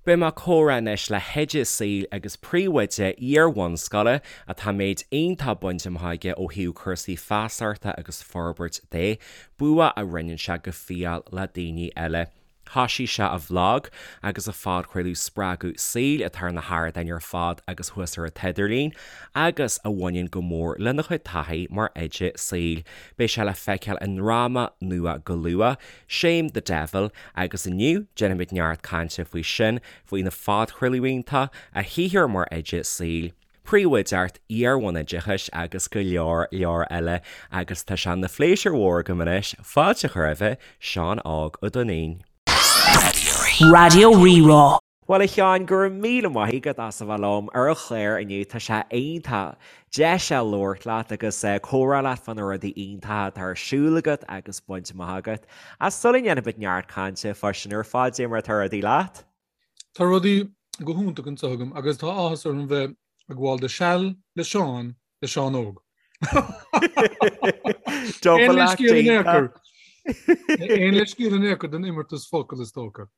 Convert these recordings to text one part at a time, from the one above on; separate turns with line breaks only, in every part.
Beidh mé ag comhrá anois le hoide saoil agus príomhoide iar-bhunscoile atá méid iontach bainte amach aige ó thaobh cúrsaí feasachta agus forbairt de, bua a roinneann sé go fial le daoine eile. Thoisigh sé a bhlag agus a phodchraoladh Spreagadh Saoil atá ar na hardáin ar fad agus thuas ar an t-idirlíon agus a bhaineann go mór lena chuid taithí mar oide saoil. Beidh sé le feiceáil i ndráma nua go luath, Shame the Devil, agus inniu déanfaimid neart cainte faoi sin, faoina phodchraoladh iontach, a shaothar mar oide saoil, príomhoideacht iar-bhunoideachais agus go leor leor eile agus tá sé ina phléisiúr mhór agam anois fáilte a chur roimhe, Seán Óg Ó Duinnín.
Raidió Rí-Rá.
Bhuel a Sheáin, go raibh míle maith agat as a bheith liom ar an chlár inniu, tá sé iontach deis a labhairt leat agus comhrá leat fá na rudaí iontacha atá ar siúl agat agus bainte amach agat. Ach sula ndéanfaimid neart cainte fá sin ar fad, cad é mar atá rudaí leat?
Tá rudaí go hiontach anseo agam agus tá áthas orm bheith ag gabháil do seal le Seán le Seán Óg.
Aon leithscéal
in aon chor. Aon leithscéal in aon chor don imeartas focal is dócha.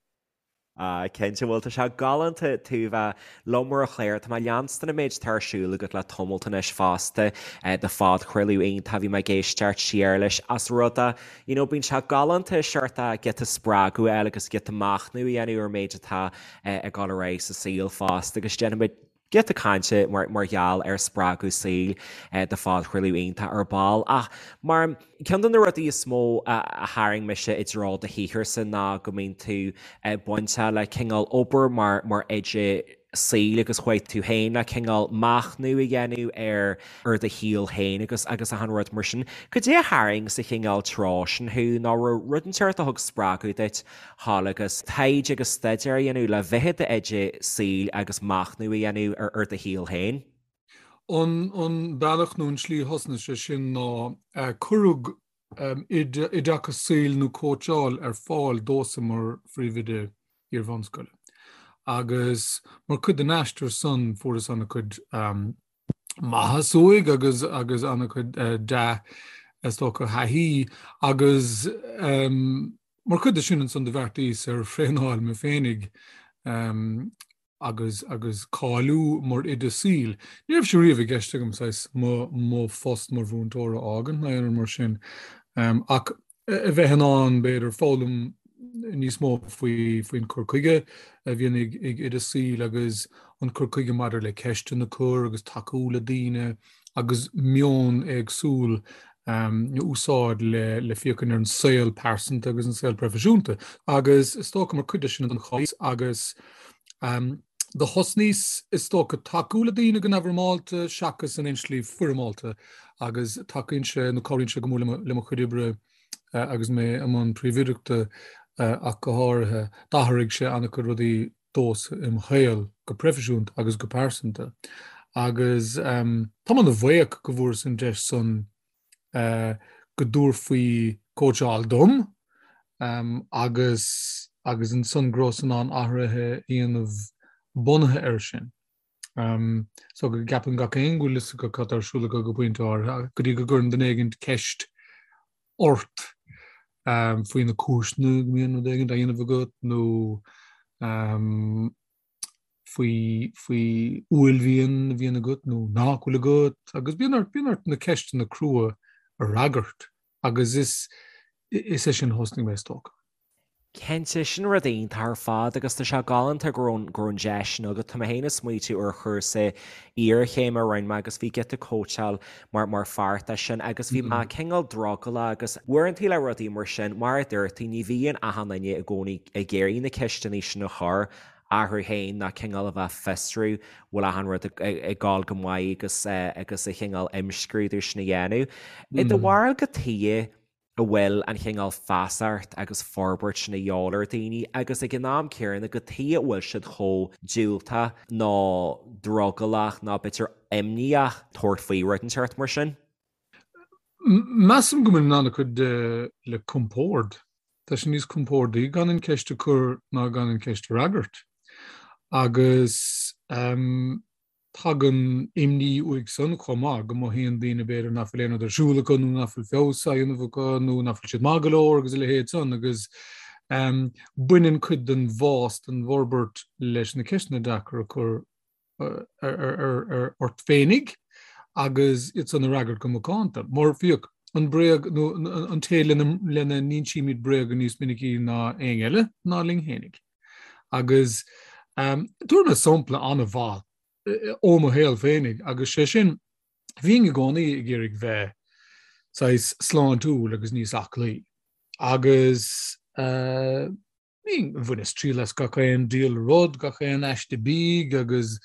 Ah, cinnte, bhuel tá sé galánta tú bheith liom ar an chlár. Tá mé ag leanstan an méid atá ar siúl agat le tamalt anois fosta, do phodchraoladh iontach, bhí mé ag éisteacht siar leis as rud a, you know, bíonn sé galánta seort giota spreagadh a fháil agus giota machnamh a dhéanamh ar an méid atá ag dul ar aghaidh sa saol fosta agus déanfaimid giota cainte mar gheall ar spreagadh saoil do phodchraoladh iontach ar ball. Ach mar ceann de na rudaí is mó a tharraing mise i dtreo do shaotharsa ná go mbíonn tú bainteach le cineál obair mar mar oide saoil agus chuaigh tú féin le cineál machnamh a dhéanamh ar ar do shaol féin agus agus achan rud mar sin. Cad é a tharraing sa chineál treo sin thú nó raibh rud inteacht a thug spreagadh duit thall agus taighde agus staidéar a dhéanamh le bheith i d'oide saoil agus machnamh a dhéanamh ar do shaol féin.
An bealach nó an tslí a thosnaigh sé sin ná cuireadh oideachas saoil nó cóitseáil ar fáil domhsa mar phríomhoide iar-bhunscoile. Agus mar chuid den aistear san fuaireas an-chuid maitheas uaidh agus agus an-chuid dea is dócha thaithí agus mar chuid de sin ansan do bheartaíos ar thraenáil mé féinig agus agus cáiliú mar oide saoil. Ní raibh sé riamh i gceist agam saghas mo mo phost mar mhúinteoir a fhágaint ná aon rud mar sin ach a bheith in ann, b'fhéidir, foghlaim níos mó faoi faoin cur chuige a bhíonn ag ag oide saoil agus an cur chuige maidir le ceisteanna a chur agus tacú le daoine agus meon éagsúil a úsáid le le féachaint ar an saol pearsanta agus an saol proifisiúnta. Agus is dócha mar chuid de sin an chás agus do thosnaíos is dócha tacú le daoine go neamhfhoirmeálta seachas in aon slí foirmeálta agus tacaíonn sé nó cabhraíonn sé go mór le mo chuid oibre agus mé i mbun príomhoideachta ach go háirithe. D'athraigh sé an-chuid rudaí domhsa im shaol go proifisiúnta agus go pearsanta agus táim ana-bhuíoch go bhfuaireas an deis san go dtabharfaí cóitseáil dom agus agus ansan go rabhas in ann athruithe a dhéanamh bunaithe air sin. So go gceapann gach éinne go bhfuil fhios acu cad tá ar siúl acu go pointe áirithe, go dtí go gcuireann duine éigin ceist ort faoi na cúiseanna go mbíonn rud éigin á dhéanamh agat nó faoi faoi uaillmhian a bhíonn agat nó nach bhfuil agat agus bíonn ort bíonn ort na ceisteanna crua a fhreagairt agus is is é sin a thosnaigh mé is dócha.
Cinnte, sin rud iontach ar fad agus tá sé galánta go raibh go raibh an deis sin agat. Tá mé féin ag smaoitiú ar chúrsa iarchéime a rinne mé agus bhí giota cóitseáil mar mar pháirt de sin agus bhí mé cineál drogallach agus uaireanta le rudaí mar sin, mar a dúirt tú, ní bhíonn achan duine i gcónaí ag iarraidh na ceisteanna sin a chur orthu féin ná cineál a bheith fiosrú bhfuil achan rud ag gabháil go maith agus agus a chineál imscrúdú sin a dhéanamh. I do bharúil cad chuige a bhfuil an chineál feasacht agus forbairt sin a dhíobháil ar daoine agus ag an am céanna cad chuige a bhfuil siad chomh diúltach nó drogallach nó b'fhéidir imníoch tabhairt faoi rud inteacht mar sin?
Measaim go mbaineann an-chuid de le compord. Tá sé níos compordaí gan an ceist a chur ná gan an ceist a fhreagairt. Agus tagann imní uaidh san chomh maith, go mothaíonn daoine b'fhéidir nach bhfuil aon rud ar siúl acu nó nach bhfuil feabhas á dhéanamh acu nó nach bhfuil siad maith go leor agus a leithéid san agus. Baineann cuid den bhfás, den bhforbairt leis na ceisteanna deacair a chur ort féinig agus iad san a fhreagairt go macánta. Mar féach, an bréag nó an té lena n-insímid bréaga níos minicí ná éinne eile ná linn féinig. Agus tabharfaidh mé sampla an-mhaith ó mo shaol féinig agus sé sin, bhínn i gcónaí ag iarraidh bheith saghas sláintiúil agus níos aclaí agus bhínn, bhaineas triail as gach aon diabhal rud, gach aon aiste bídh agus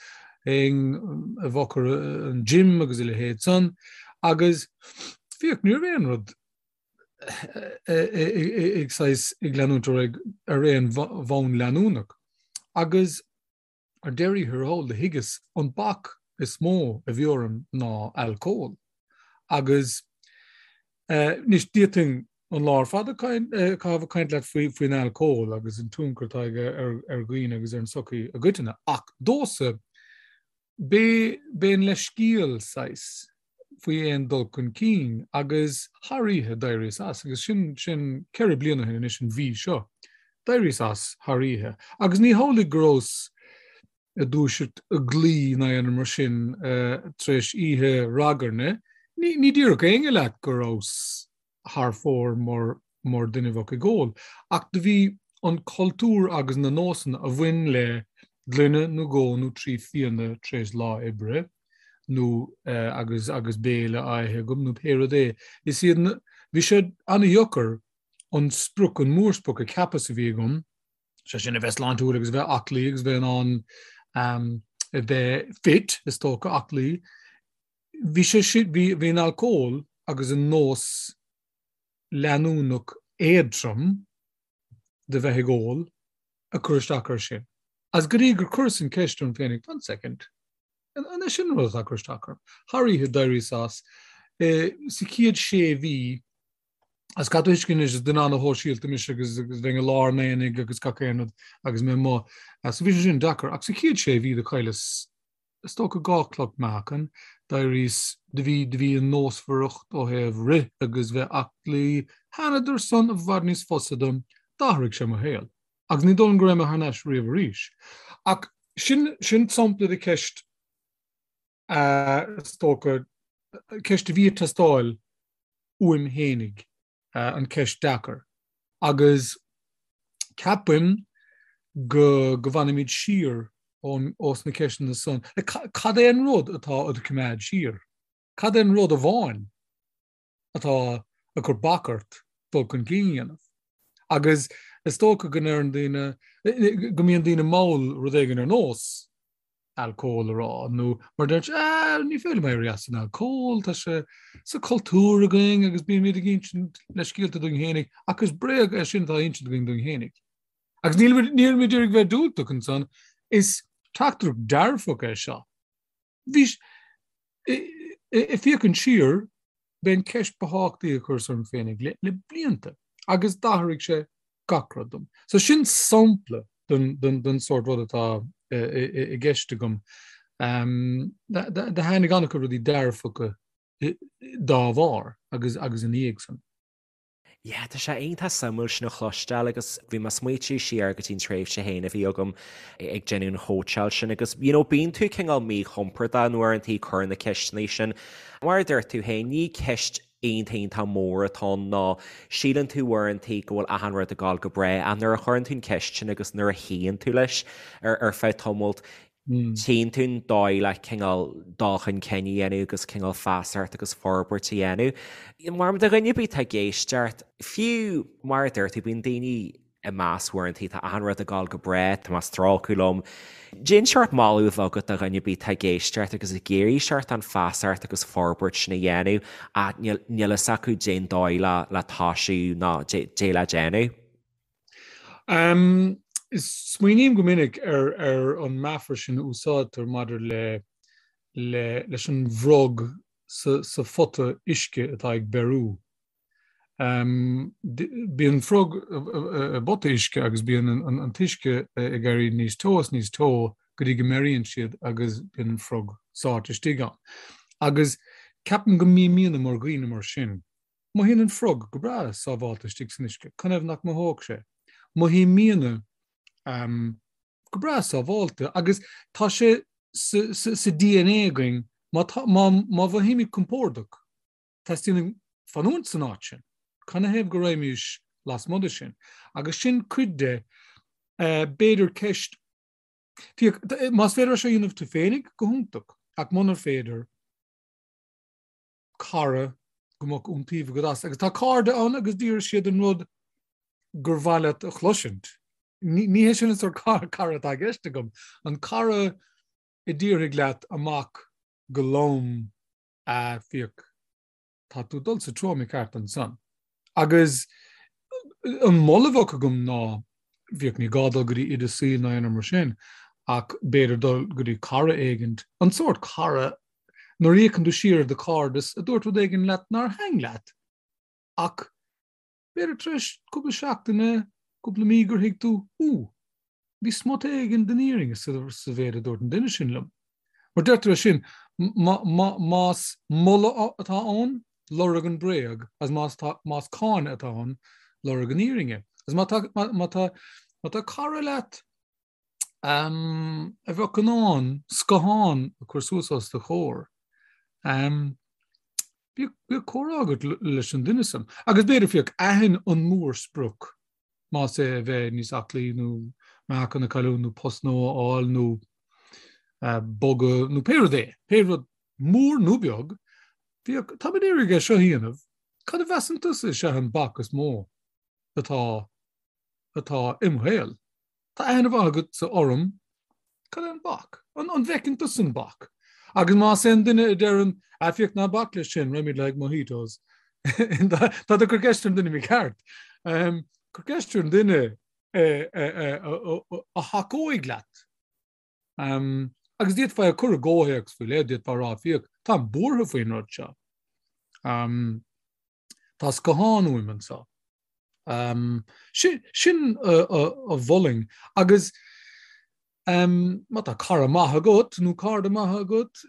théinn i bhfochair an gym agus a leithéid san agus féach, ní raibh aon rud ag saghas ag leanúint ar aghaidh ar aon bhonn leanúnach agus Ar deireadh thiar thall, do thuigeas an bac is mó a bhí orm ná alcól. Agus anois d'fhéadfainn an lá ar fad a chaitheamh ag caint leat faoin alcól agus an tionchar atá aige ar dhaoine agus ar an tsochaí i gcoitinne. Ach domhsa, b'é an leithscéal saghas faoi aon dul chun cinn agus thar oíche d'éiríos as agus sin sin 4 bliana ó shin anois an mhí seo. D'éiríos as thar oíche agus ní hamhlaidh go rabhas ag dúiseacht ag guí ná aon rud mar sin tar éis oíche ragairne. Ní ní déarfadh éinne leat go rabhas thar fóir mar mar duine a bheadh ag ól. Ach do bhí an cultúr agus na nósanna a bhain le gloine nó dhó nó 3 fíona tar éis lá oibre nó agus agus béile á ithe agam nó pé rud é, is iad na, bhí sé an-dheacair an sprioc, an mórsprioc a cheapas a bhí agam, sé sin a bheith sláintiúil agus a bheith aclaí agus a bheith in ann a bheith fit, is dócha, aclaí. Bhí sé sin, bhí, bhí an alcól agus an nós leanúnach éadtrom de bheith ag ól ag cur isteach air sin. Agus go dtí gur chuireas an cheist orm féinig, one second, an é sin an rud atá ag cur isteach orm? Thar oíche d'éiríos as. Sa chéad sé mhí, agus caithfidh tú a thuiscint anois, is duine ana-shóisialta mise agus bheinn i lár an aonaigh agus gach aon rud agus mé amuigh. So bhí sé sin deacair. Ach sa chéad sé mhí do chailleas is dócha 2 chloch meáchain, d'éiríos, do bhí, do bhí an nósmhaireacht ó thaobh rith agus bheith aclaí, thánadar san i bhfad níos fusa dom, d'athraigh sé mo shaol. Agus ní dóigh liom go raibh mé thar n-ais riamh arís. Ach sin, sin sampla de cheist, is dócha, ceist a bhí ag teastáil uaim fhéinig. an ceist deacair agus ceapaim go go bhfanaimid siar ós na ceisteanna san. Cad é an rud atá a'd coimeád siar? Cad é an rud amháin atá ag cur bac ort dul chun cinn a dhéanamh? Agus is dócha go ndeireann daoine, go mbíonn daoine mall rud éigin ar nós alcól a rá, nó mar deir siad, ah, ní féidir liom éirí as an alcól, tá sé sa chultúr againn agus bímid ag insint leithscéalta dúinn fhéinig, ach is bréag é sin atá á insint againn dúinn fhéinig. Agus nílimid nílimid ag iarraidh bheith diúltach ansan, is teachtaireacht dearfach é seo. Bhí, ag féachaint siar, b'é an ceist ba thábhachtaí a chuireas orm féinig le le blianta, agus d'athraigh sé gach rud dom. So sin sampla den sórt rud atá i gceist agam. Do tháinig an-chuid rudaí dearfacha dá bharr agus agus ina dhiaidh san.
Yeah, tá sé iontach suimiúil sin a chloisteáil agus bhí mé ag smaoitiú siar go dtí an tréimhse féin a bhí agam ag déanamh an chóitseáil sin agus you know bíonn tú cineál míchompordach uaireanta ag cur na ceisteanna sin. Mar a dúirt tú féin, ní ceist iontach iontach mór atá ann ná síleann tú uaireanta go bhfuil achan rud ag gabháil go breá ach nuair a chuireann tú an ceist sin agus nuair a shuíonn tú leis ar ar feadh tamaill tchíonn tú an dóigh le cineál dul chun cinn a dhéanamh agus cineál feasacht agus forbairt a dhéanamh. Mar do dhuine ar bith atá ag éisteacht, fiú mar a dúirt tú bíonn daoine ag meas uaireanta, tá achan rud ag gabháil go breá, tá mé ag strácadh liom. Cén seort moladh a bheadh agat do dhuine ar bith atá ag éisteacht agus ag iarraidh seort an feasacht agus forbairt sin a dhéanamh ach níl fhios acu cén dóigh le le toisiú ná cad é le déanamh?
Smaoiním go minic ar ar an meafar sin a úsáidtear maidir le le leis an bhfrog sa sa phota uisce atá ag beiriú. Bíonn frog i bpota uisce agus bíonn an t-uisce ag éirí níos teo is níos teo go dtí go mbeiríonn siad agus bíonn an frog sáite istigh ann. Agus ceapaim go mbímidne mar dhaoine mar sin. Mothaíonn an frog go breá sábhálta istigh san uisce, canathaobh nach mothódh sé? Mothaímidne go breá sábháilte agus tá sé sa DNA againn má mhothaímid compordach, teastaíonn uainn fanúint san áit sin. Canathaobh go raghaimís lasmuigh de sin? Agus sin cuid de, b'fhéidir ceist, féach, más féidir é seo a dhéanamh tú féinig, go hiontach, ach munar féidir, cara go mbeadh iontaoibh agat as. Agus tá cairde ann agus déarfaidh siad an rud gur mhaith leat a chloisint. Ní hé sin an sórt cara atá i gceist agam. An cara a déarfaidh leat amach go lom, a féach, tá tú ag dul sa treo mícheart ansan. Agus an moladh a bheadh agam ná, féach, ní gá dul go dtí oide saoil ná aon rud mar sin, ach b'fhéidir dul go dtí cara éigint, an sórt cara nuair a fhéachann tú siar ar do chairdeas a dúirt rud éigin leat nár thaitin leat, ach b'fhéidir tar éis cúpla seachtaine, cúpla mí gur thuig tú, Ú, bhí smut éigin den fhírinne sa mhéid a dúirt an duine sin liom. Mar deirtear é sin, más moladh atá ann, lorg an bréag, agus más más cáineadh atá ann, lorg an fhírinne. Agus má tá má tá má tá cara leat a bheadh in ann scáthán a chur suas os do chomhair, bíodh comhrá agat leis an duine san. Agus b'fhéidir, féach, aithin an mórsprioc, más é a bheith níos aclaí nó meáchan a chailliúint nó post nua a fháil nó bogadh nó pé rud é, pé rud mór nó beag, féach, táim ag iarraidh é seo a dhéanamh, cad a mheasann tusa is ea an bac is mó atá atá im shaol? Tá aithne mhaith agatsa orm, cad é an bac? An bhfeiceann tusa an bac? Agus más é an duine a deireann, ah féach ná bac leis sin, raghaimid le haghaidh mojitos. Tá tú ag cur ceist ar an duine mícheart. Cuir ceist ar an duine a thacóidh leat. Agus d'fhéadfá é a chur i gcomhthéacs faoi leith, d'fhéadfá a rá, féach, táim buartha faoin rud seo. Tá scáthán uaim anseo. Sin a mholfainn. Agus má tá cara maith agat nó cairde maithe agat,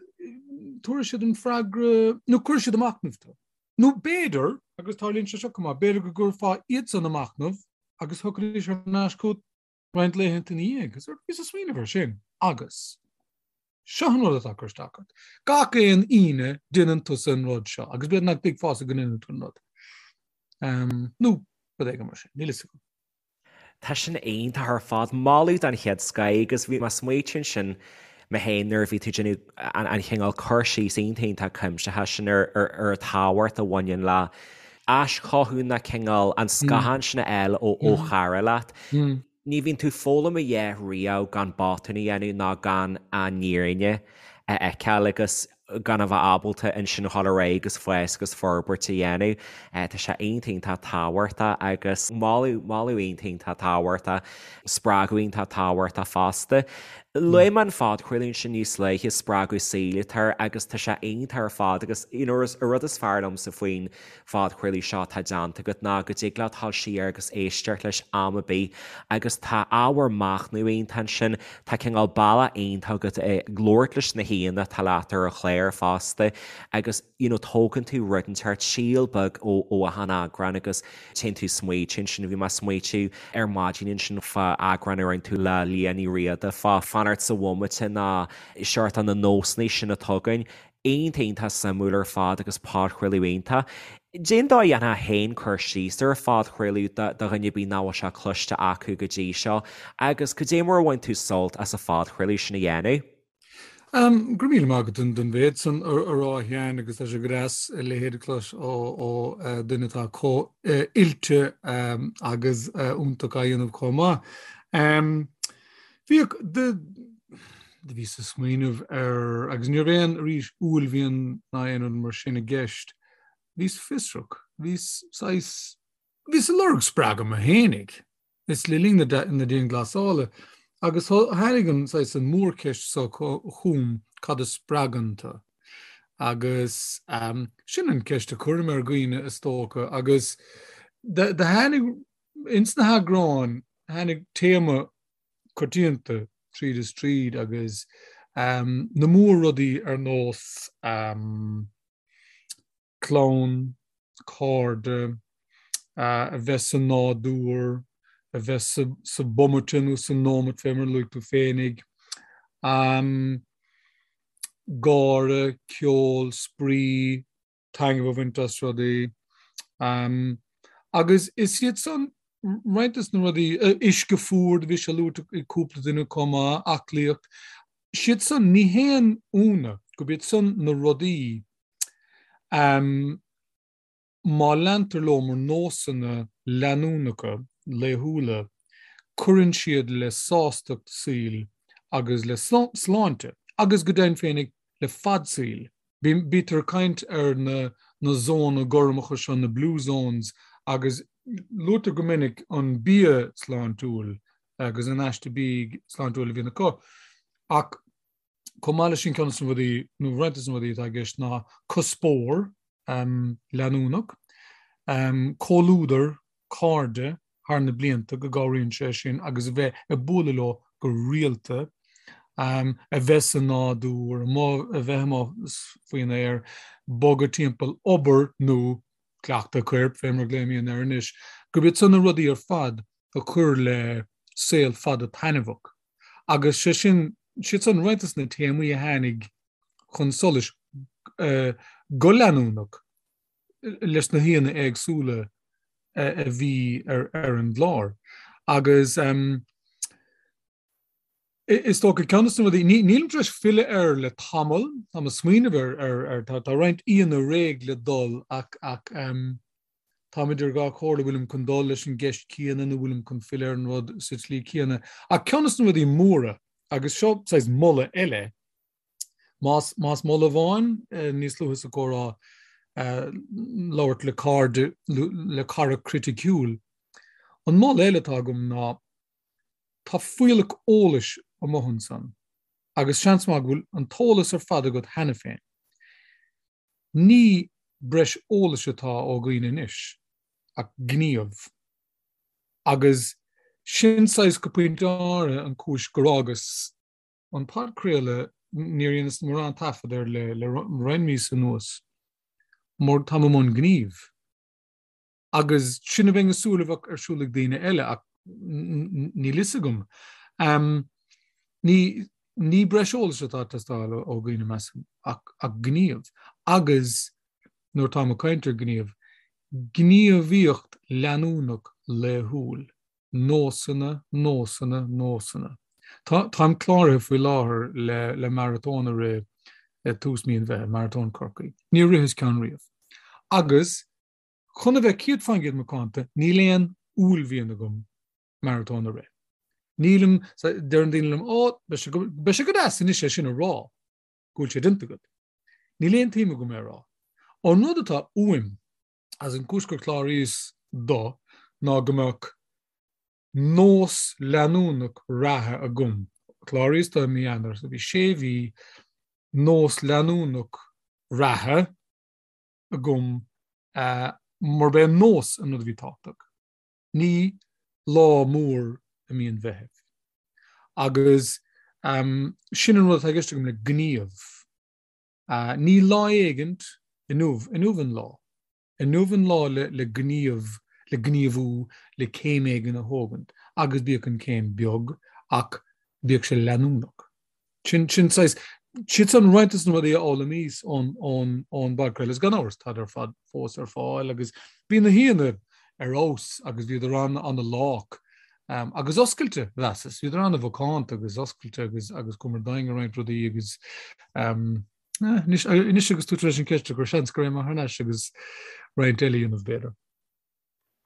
tabharfaidh siad an freagra nó cuirfidh siad ag machnamh tú. Nó b'fhéidir, agus tarlaíonn sé seo chomh maith, b'fhéidir go gcuirfeá iadsan ag machnamh agus thiocfaidís thar n-ais chugat roinnt laethanta ina dhiaidh. Bhíos ag smaoineamh air sin agus seo an rud atá ag cur isteach ort. Gach aon Aoine déanann tusa an rud seo agus b'fhéidir nach dtuigfeása go ndéanann tú an rud. Nó rud éigin mar sin, níl fhios agam.
Tá sin iontach ar fad. Moladh den chéad scoth agus bhí mé ag smaoitiú ansin mé féin nuair a bhí tú ag déanamh an chineál cur síos iontach iontach cuimsitheach sin ar an tábhacht a bhaineann le aischothú ná cineál an scáthán sin a fháil ó chara leat. Ní bhíonn tú ag foghlaim a dhath riamh gan botún a dhéanamh ná gan an fhírinne a fheiceáil agus gan a bheith ábalta ansin a dhul ar aghaidh agus fás agus forbairt a dhéanamh. Tá sé iontach iontach tábhachtach agus moladh, moladh iontach iontach tábhachtach, spreagadh iontach tábhachtach fosta. Luaigh mé an phodchraoladh ansin níos luaithe, Spreagadh Saoil atá air agus tá sé iontach ar fad agus you know an rud is fearr liomsa faoin phodchraoladh seo atá déanta agat ná go dtig leat dul siar agus éisteacht leis am ar bith agus tá ábhar machnaimh iontach ansin, tá cineál bealach iontach agat ag labhairt leis na haíonna atá leat ar an chlár fosta agus you know tógann tú rud inteacht, síol beag ó ó achan eagrán agus téann tú ag smaoitiú ansin, bhí mé ag smaoitiú ar maidin ansin fá eagrán a rinne tú le Liadh Ní Riada fá fanacht sa bhomaite ná seort na nósanna sin atá againn. Iontach iontach suimiúil ar fad agus podchraoladh iontach. Cén dóigh a ndéanfá féin cur síos ar an phodchraoladh do dhuine ar bith nach bhfuil sé cloiste acu go dtí seo agus cad é mar a bhain tú sult as an phodchraoladh sin a dhéanamh?
Go raibh míle maith agat don mhéid san a rá a Sheáin agus tá sé go deas a leithéid a chlos ó dhuine atá chomh oilte agus iontach á dhéanamh chomh maith. Bhíodh, do bhíos ag smaoineamh ar, agus ní raibh aon, arís, uaillmhian ná aon rud mar sin i gceist, bhíos fiosrach, bhíos saghas, bhíos ag lorg spreagadh mo fhéinig, is le linn na dianghlasála, agus tháinig an saghas, an mhórcheist seo chugam, cad a spreagann tú? Agus sin an ceist a chuirim ar dhaoine, is dócha, agus do tháinig, ins na heagráin, tháinig téama coitianta tríd is tríd agus na mór-rudaí ar nós clann, cairde, a bheith sa nádúr, a bheith sa, sa bomaite nó sa nóimeat fé mar a luaigh tú féinig, gáire, ceol, spraoi, taitneamh a bhaint as rudaí. Agus is iad san roinnt des na rudaí, uisce fuar, do bhí sé luaite ag cúpla duine chomh maith, aclaíocht, siad san, ní haon ionadh gurb iad san na rudaí má leantar leo mar nósanna leanúnacha laethúla, cuireann siad le sástacht saoil agus le sláinte, agus go deimhin féinig le fad saoil. Bítear ag caint ar na na zónna gormacha seo, na blue zones, agus luaitear go minic an bia sláintiúil agus an aiste bídh sláintiúil a bhíonn acu. Ach chomh maith leis sin ceann de na rudaí, nó roinnt de na rudaí atá i gceist ná cuspóir leanúnach, comhluadar, cairde thar na blianta, go gcabhraíonn sé sin agus a bheith ag bualadh leo go rialta, a bheith sa nádúr, a bheith amuigh faoin aer, bogadh timpeall, obair nó cleachtadh coirp, fé mar a ghlaoimidne air anois, gurb iad san na rudaí ar fad a chuir le saol fada taitneamhach. Agus sé sin, siad san roinnt de na téamaí a tháinig chun solais go leanúnach leis na haíonna éagsúla a bhí ar an gclár. Agus is dócha ceann de na rudaí, nílim tar éis filleadh air le tamall, táim ag smaoineamh ar, tá roinnt aíonna réidh le dul ach táim idir dhá chomhairle, bhfuilim chun dul leis an gceist chéanna nó bhfuilim chun filleadh ar an rud sa tslí chéanna. Ach ceann de na rudaí móra, agus seo saghas moladh eile, Más, más moladh amháin, níos luaithe sa chomhrá, labhairt le cairde, le cara criticiúil. An moladh eile atá agam ná, tá fuílleach eolais amuigh ansan agus seans maith go bhfuil an t-eolas ar fad agat cheana féin. Ní breis eolais atá ó dhaoine anois, ach gníomh. Agus sin saghas go pointe áirithe an chúis gur fhágas an podchraoladh, níor dheineas mórán taifead air le roinnt míosa anuas, mar táim i mbun gnímh. Agus sin a bheinn ag súil a bheadh ar siúl ag daoine eile, ach níl fhios agam. Ní ní breis eolais atá ag teastáil ó dhaoine, measaim, ach ach gníomh. Agus nuair atáim ag caint ar ghníomh, gníomhaíocht leanúnach laethúil. Nósanna, nósanna, nósanna. Tá, táim cláraithe faoi láthair le, le maratón a rith ag tús mí an Mheithimh, Maratón Chorcaí. Níor ritheas ceann riamh. Agus, chun a bheith 100% macánta, níl aon uaillmhian agam maratón a rith. Nílim, deireann daoine liom, ó, beidh sé go, beidh sé go deas anois é sin a rá, go bhfuil sé déanta agat. Níl aon tsuim agam é a rá. An rud atá uaim, Agus an chúis gur chláraíos dó ná go mbeadh nós leanúnach reatha agam. Chláraíos dó i mí Eanáir, so bhí sé mhí nós leanúnach reatha agam mar b'é an nós an rud a bhí tábhachtach. Ní lá mór i mí an Mheithimh. Agus sin an rud atá i gceist agam le gníomh. Ní lá éigint, inniu, inniu an lá. Inniu an lá le, le gníomh, le gníomhú, le céim éigin a thógaint, agus bíodh an chéim beag, ach bíodh sé leanúnach. Sin, sin saghas, siad san roinnt de na rudaí a fhoghlaimíos ón, ón, ón bpodchraoladh, agus gan amhras, táid ar fad fós ar fáil, agus bhí na haíonna ar fheabhas, agus bhíodar an, an-lách, agus oscailte, mheasas. Bhíodar an-mhacánta agus oscailte agus agus chuamar domhain i roinnt rudaí agus anois anois agus tú tar éis an cheist a chur, seans go raghaidh mé thar n-ais agus roinnt eile a dhéanamh, b'fhéidir.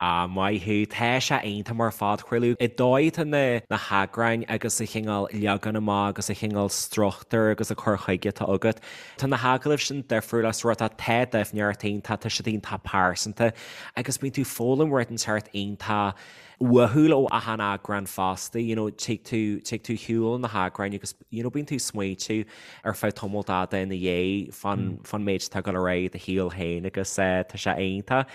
Ah, maith thú. Tá sé iontach mar phodchraoladh. An dóigh atá na na heagráin agus an chineál leagan amach agus an chineál struchtúr agus an cur chuige atá agat. Tá na hagallaimh sin difriúil as rud atá tá doimhneacht iontach, tá siad iontach pearsanta agus bíonn tú ag foghlaim rud inteacht iontach uathúil ó achan eagrán fosta, you know, tig tú, tig tú ar shiúl na heagráin agus, you know, bíonn tú ag smaointiú ar feadh tamall fada ina dhiaidh fán, fán méid atá ag dul ar aghaidh i do shaol féin agus eh, tá sé iontach.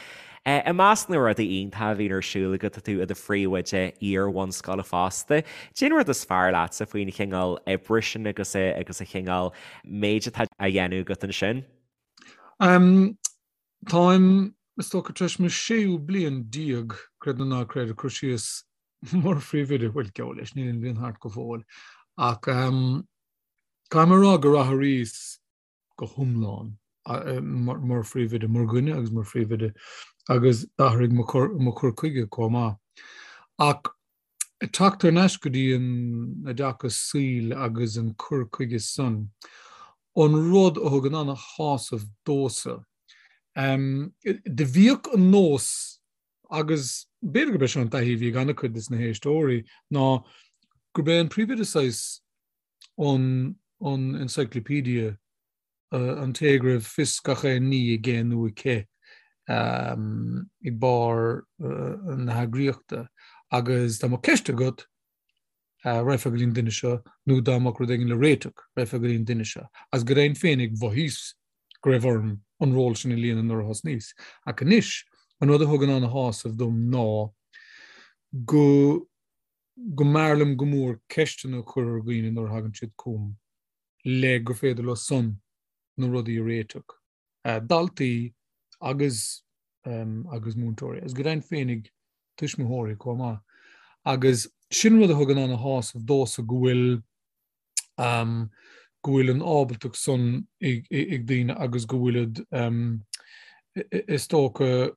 Eh, i measc na rudaí iontach a bhíonn ar siúl agat, tá tú i do phríomhoide iar-bhunscoile fosta. Cén rud is fearr leatsa faoin chineál oibre sin agus eh, agus an chineál méid atá á dhéanamh agat ansin?
Um, Táim, is dócha, tar éis mo séú bliain déag, creid nó ná creid, ag cur síos. Mar phríomhoide, bhuel, geall leis, níl an bhliain thart go fóill, ach caithfidh mé a rá gur athraíos go hiomlán mar phríomhoide, mar dhuine agus mar phríomhoide, agus d'athraigh mo chur chuige chomh maith. Ach ag teacht thar n-ais go dtí an oideachas saoil agus an cur chuige san, an rud a thugann ana-shásamh domhsa, do bhíodh an nós agus b'fhéidir gurb é seo an taithí a bhí ag an-chuid de na héisteoirí, ná gurb é an príomhoide saghas an an encyclopedia, an té go raibh fios gach aon ní aige nó aici ag barr na heagraíochta. Agus dá mbeadh ceist agat, raghfá go dtí an duine seo, nó dá mbeadh rud éigin le réiteach, raghfá go dtí an duine seo. Agus go deimhin féinig mhothaíos go raibh orm an ról sin a líonadh nuair a thosnaíos. Ach anois, an rud a thugann ana-shásamh dom ná go go mb'fhearr liom go mór ceisteanna a chur ar dhaoine nuair a thagann siad chugam le gur féidir leo san na rudaí a réiteach. Daltaí agus agus múinteoirí, agus go deimhin féinig tuismitheoirí chomh maith. Agus sin rud a thugann ana-shásamh domhsa go bhfuil go bhfuil an ábaltacht san ag daoine agus go bhfuilid is dócha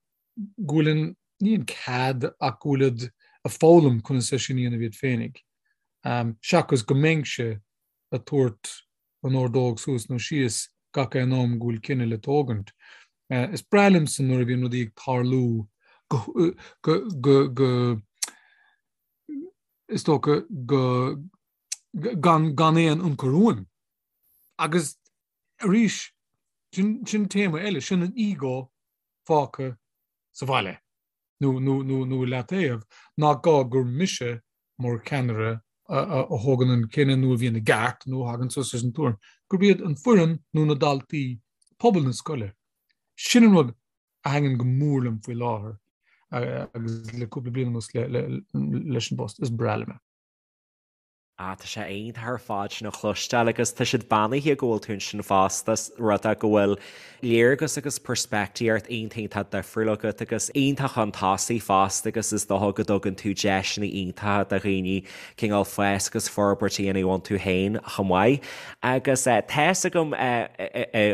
go bhfuil an, ní an cead ach go bhfuilid ag foghlaim conas é sin a dhéanamh iad féinig. Seachas go mbeinnse ag tabhairt an ordóg suas nó síos gach aon am go bhfuil cinneadh le tógaint. Is breá liomsa nuair a bhíonn rudaí ag tarlú go, go, go, go, is dócha go, gan, gan aon ionchur uaim. Agus arís, sin, sin téama eile, sin an ego fágtha sa bhaile nó, nó, nó, nó i leataobh, nach gá gur mise mar cheannaire a thógann an cinneadh nó a bhíonn i gceart nó a thagann suas leis an tuairim, gurb iad an foireann nó na daltaí, pobal na scoile. Sin an rud a thaitníonn go mór liom faoi láthair agus le cúpla bliain anuas leis an bpost. Is breá liom é.
Ah, tá sé iontach ar fad sin a chloisteáil agus tá siad beannaithe go bhfuil tú ansin fosta, rud é go bhfuil léargas agus peirspictíocht iontach iontach difriúil agat agus iontach chun tosaigh fosta agus is dócha go dtugann tú deiseanna iontacha do dhaoine cineál fás agus forbairt a dhéanamh iontu féin chomh maith. Agus tá's agam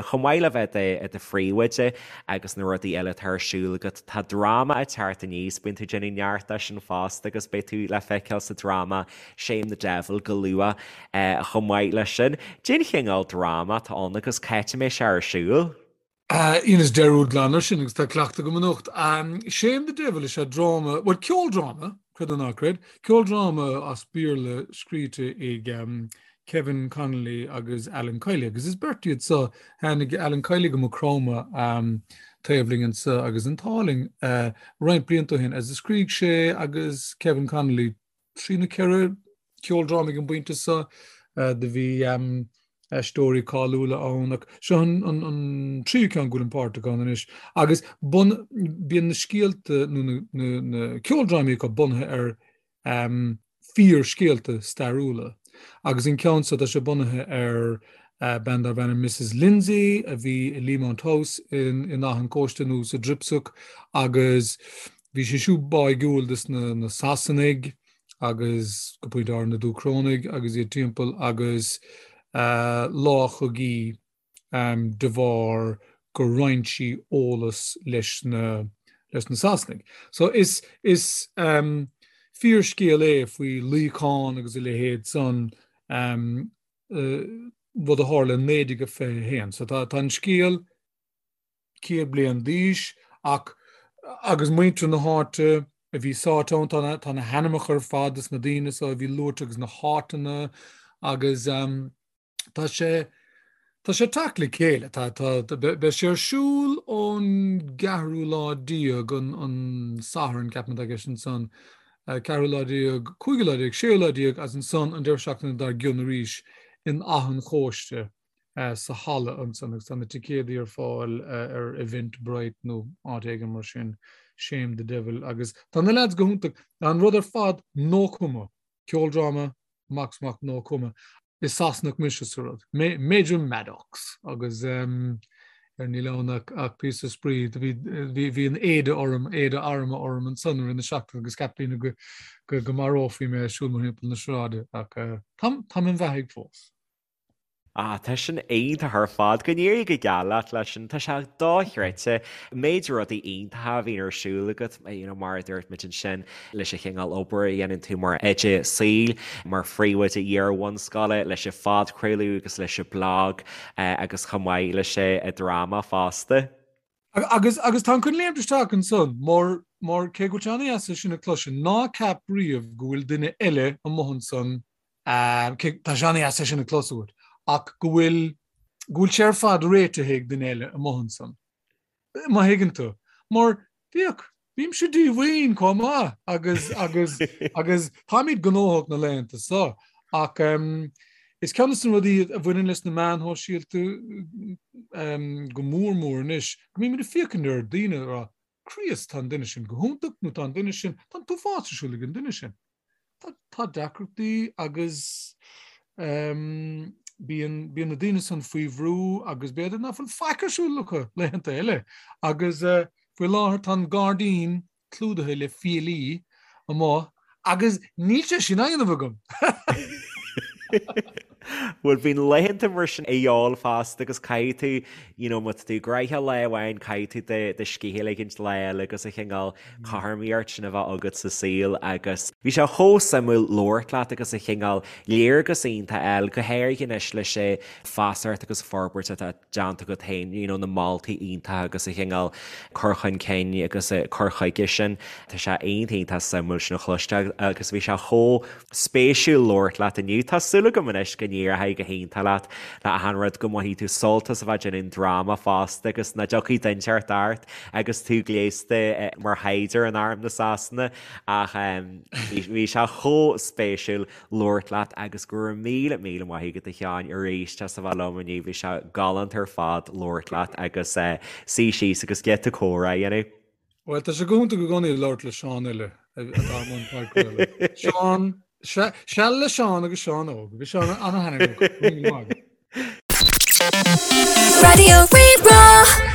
chomh maith le bheith i do phríomhoide agus na rudaí eile atá ar siúl agat, tá dráma ag teacht aníos, bíonn tú ag déanamh neart de sin fosta agus beidh tú le feiceáil sa dráma Shame the Devil go luath chomh maith leis sin. Cén chineál dráma atá ann agus cá háit a mbeidh sé ar siúl?
Dheineas dearúd glan air sin agus tá cleachtadh agam anocht. Shame the Devil is ea dráma, bhuel ceoldráma, creid nó ná creid, ceoldráma as Béarla scríte ag Kevin Connolly agus Alan Kiely agus is beirt iad so, tháinig Alan Kiely go Maigh Chromtha taobh linn anso agus an t-ádh linn roinnt blianta ó shin agus scrígh sé agus Kevin Connolly 3 nó 4 ceoldráma ag an bpointe seo. Do bhí aisteoirí cáiliúla ann ach seo an tríú ceann go bhfuilim páirteach ann anois. Agus bíonn na scéalta nó na ceoldrámaí acu bunaithe ar fíorscéalta stairiúla. Agus an ceann seo tá sé bunaithe ar bean darbh ainm Mrs Lindsay a bhí i Leamount House in Áth an Chóiste nó sa Dripsach agus Bhí sí siúd báigiúil dos na Sasanaigh agus go pointe áirithe na Dúchrónaigh agus iad timpeall agus láchadh í de bharr gur roinn sí eolas leis na leis na Sasanaigh. So is is fíorscéal é faoi luíochán agus a leithéid san rud a tharla i 1921. So tá tá an scéal 100 bliain d'aois ach agus muintir na háite a bhí sáite ann, tá na, tá na hainmneacha ar fad dos na daoine so a bhí luaite agus na háiteanna agus um, tá sé tá sé teacht le chéile, tá, tá, beidh sé ar siúl ón gceathrú lá déag an, an Satharn ceapaim atá i gceist ansan, ceathrú lá déag, cúigiú lá déag, séú lá déag agus ansan an deireadh seachtaine dár gcionn arís in Áth an Chóiste. sa halla ansan agus tá na ticéadaí ar fáil ar Eventbrite nó áit éigin mar sin, Shame the Devil agus tá na leaids go hiontach. Tá an rud ar fad no cuma, ceoldráma, amach is amach no cuma. Is Sasanach mise sa rud, Major Maddox agus. Ar níl ann ach ach píosa spraoi. Do bhí bhí bhí an éide orm, éide armtha orm ansan i rith na seachtaine agus cheap daoine go go go marófaí mé ag siúl mórthimpeall na sráide ach eh, táim táim im bheathaidh fós.
Ah, tá sin iontach ar fad. Go n-éirí go geal leat leis sin. Tá sé dochreidte. Méid rudaí iontacha a bhíonn ar siúl agat, you know, mar a dúirt muid ansin, leis an chineál obair a dhéanann tú mar oide saoil, mar phríomhoide iar-bhunscoile, leis an phodchraoladh agus leis an blag agus chomh maith leis an dráma fosta.
Agus agus táim chun léimt isteach ansan mar mar cé go bhfuil sé an-dheas é sin a chloisteáil, ná ceap riamh go bhfuil duine eile amuigh ansan Cé, tá sé an-dheas é sin a chlos uait, ach go bhfuil, go bhfuil sé ar fad réitithe ag duine eile amuigh ansan. Má thuigeann tú. Mar, féach, bímse díomhaoin chomh maith agus, agus, agus táimid gnóthach na laethanta so, ach is ceann de na rudaí a bhaineann leis na meáin shóisialta go mór mór anois, go mbímid ag féachaint ar daoine ag rá, Críost, tá an duine sin go hiontach nó tá an duine sin, tá an t-uafás ar siúl ag an duine sin. Tá, tá deacrachtaí agus ehm, bíonn, bíonn na daoine san faoi bhrú agus b'fhéidir nach bhfuil faic ar siúl acu laethanta eile. Agus eh, faoi láthair tá an gairdín clúdaithe le fiailí amuigh agus níl sé sin á dhéanamh agam.
Bhuel bíonn laethanta mar sin a dhíobháil fosta agus caithfidh tú, you know, má tá tú gnoitheach lá amháin caithfidh tú do scíth a ligint lá eile agus an chineál cothromaíocht sin a bheith agat sa saol agus bhí sé chomh suimiúil labhairt leat agus an chineál léargas iontach a fháil, go háirithe anois leis an feasacht agus forbairt atá déanta agat féin, you know, na moltaí iontacha agus an chineál cur chun cinn agus cur chuige sin. Tá sé iontach iontach suimiúil sin a chloisteáil agus bhí sé chomh spéisiúil labhairt leat inniu. Tá súil agam anois go n-éireoidh go hiontach leat le achan rud, go mbainfidh tú sult as a bheith ag déanamh an dráma fosta agus nach dtiocfaidh duine inteacht ort agus tú gléasta mar shaighdiúir in arm na Sasana ach bhí sé chomh spéisiúil. labhairt leat agus go raibh míle míle maith agat a Sheáin arís as a bheith liom inniu, bhí sé galánta ar fad labhairt leat agus suí síos agus giota comhrá a dhéanamh.
Bhuel, tá sé go hiontach i gcónaí labhairt le Seán eile atá i mbun podchraoladh. Seán, seal le Seán agus Seán Óg. Bhí sé an-thaitneamhach. Go raibh míle maith agat.
Raidió Rí-Rá.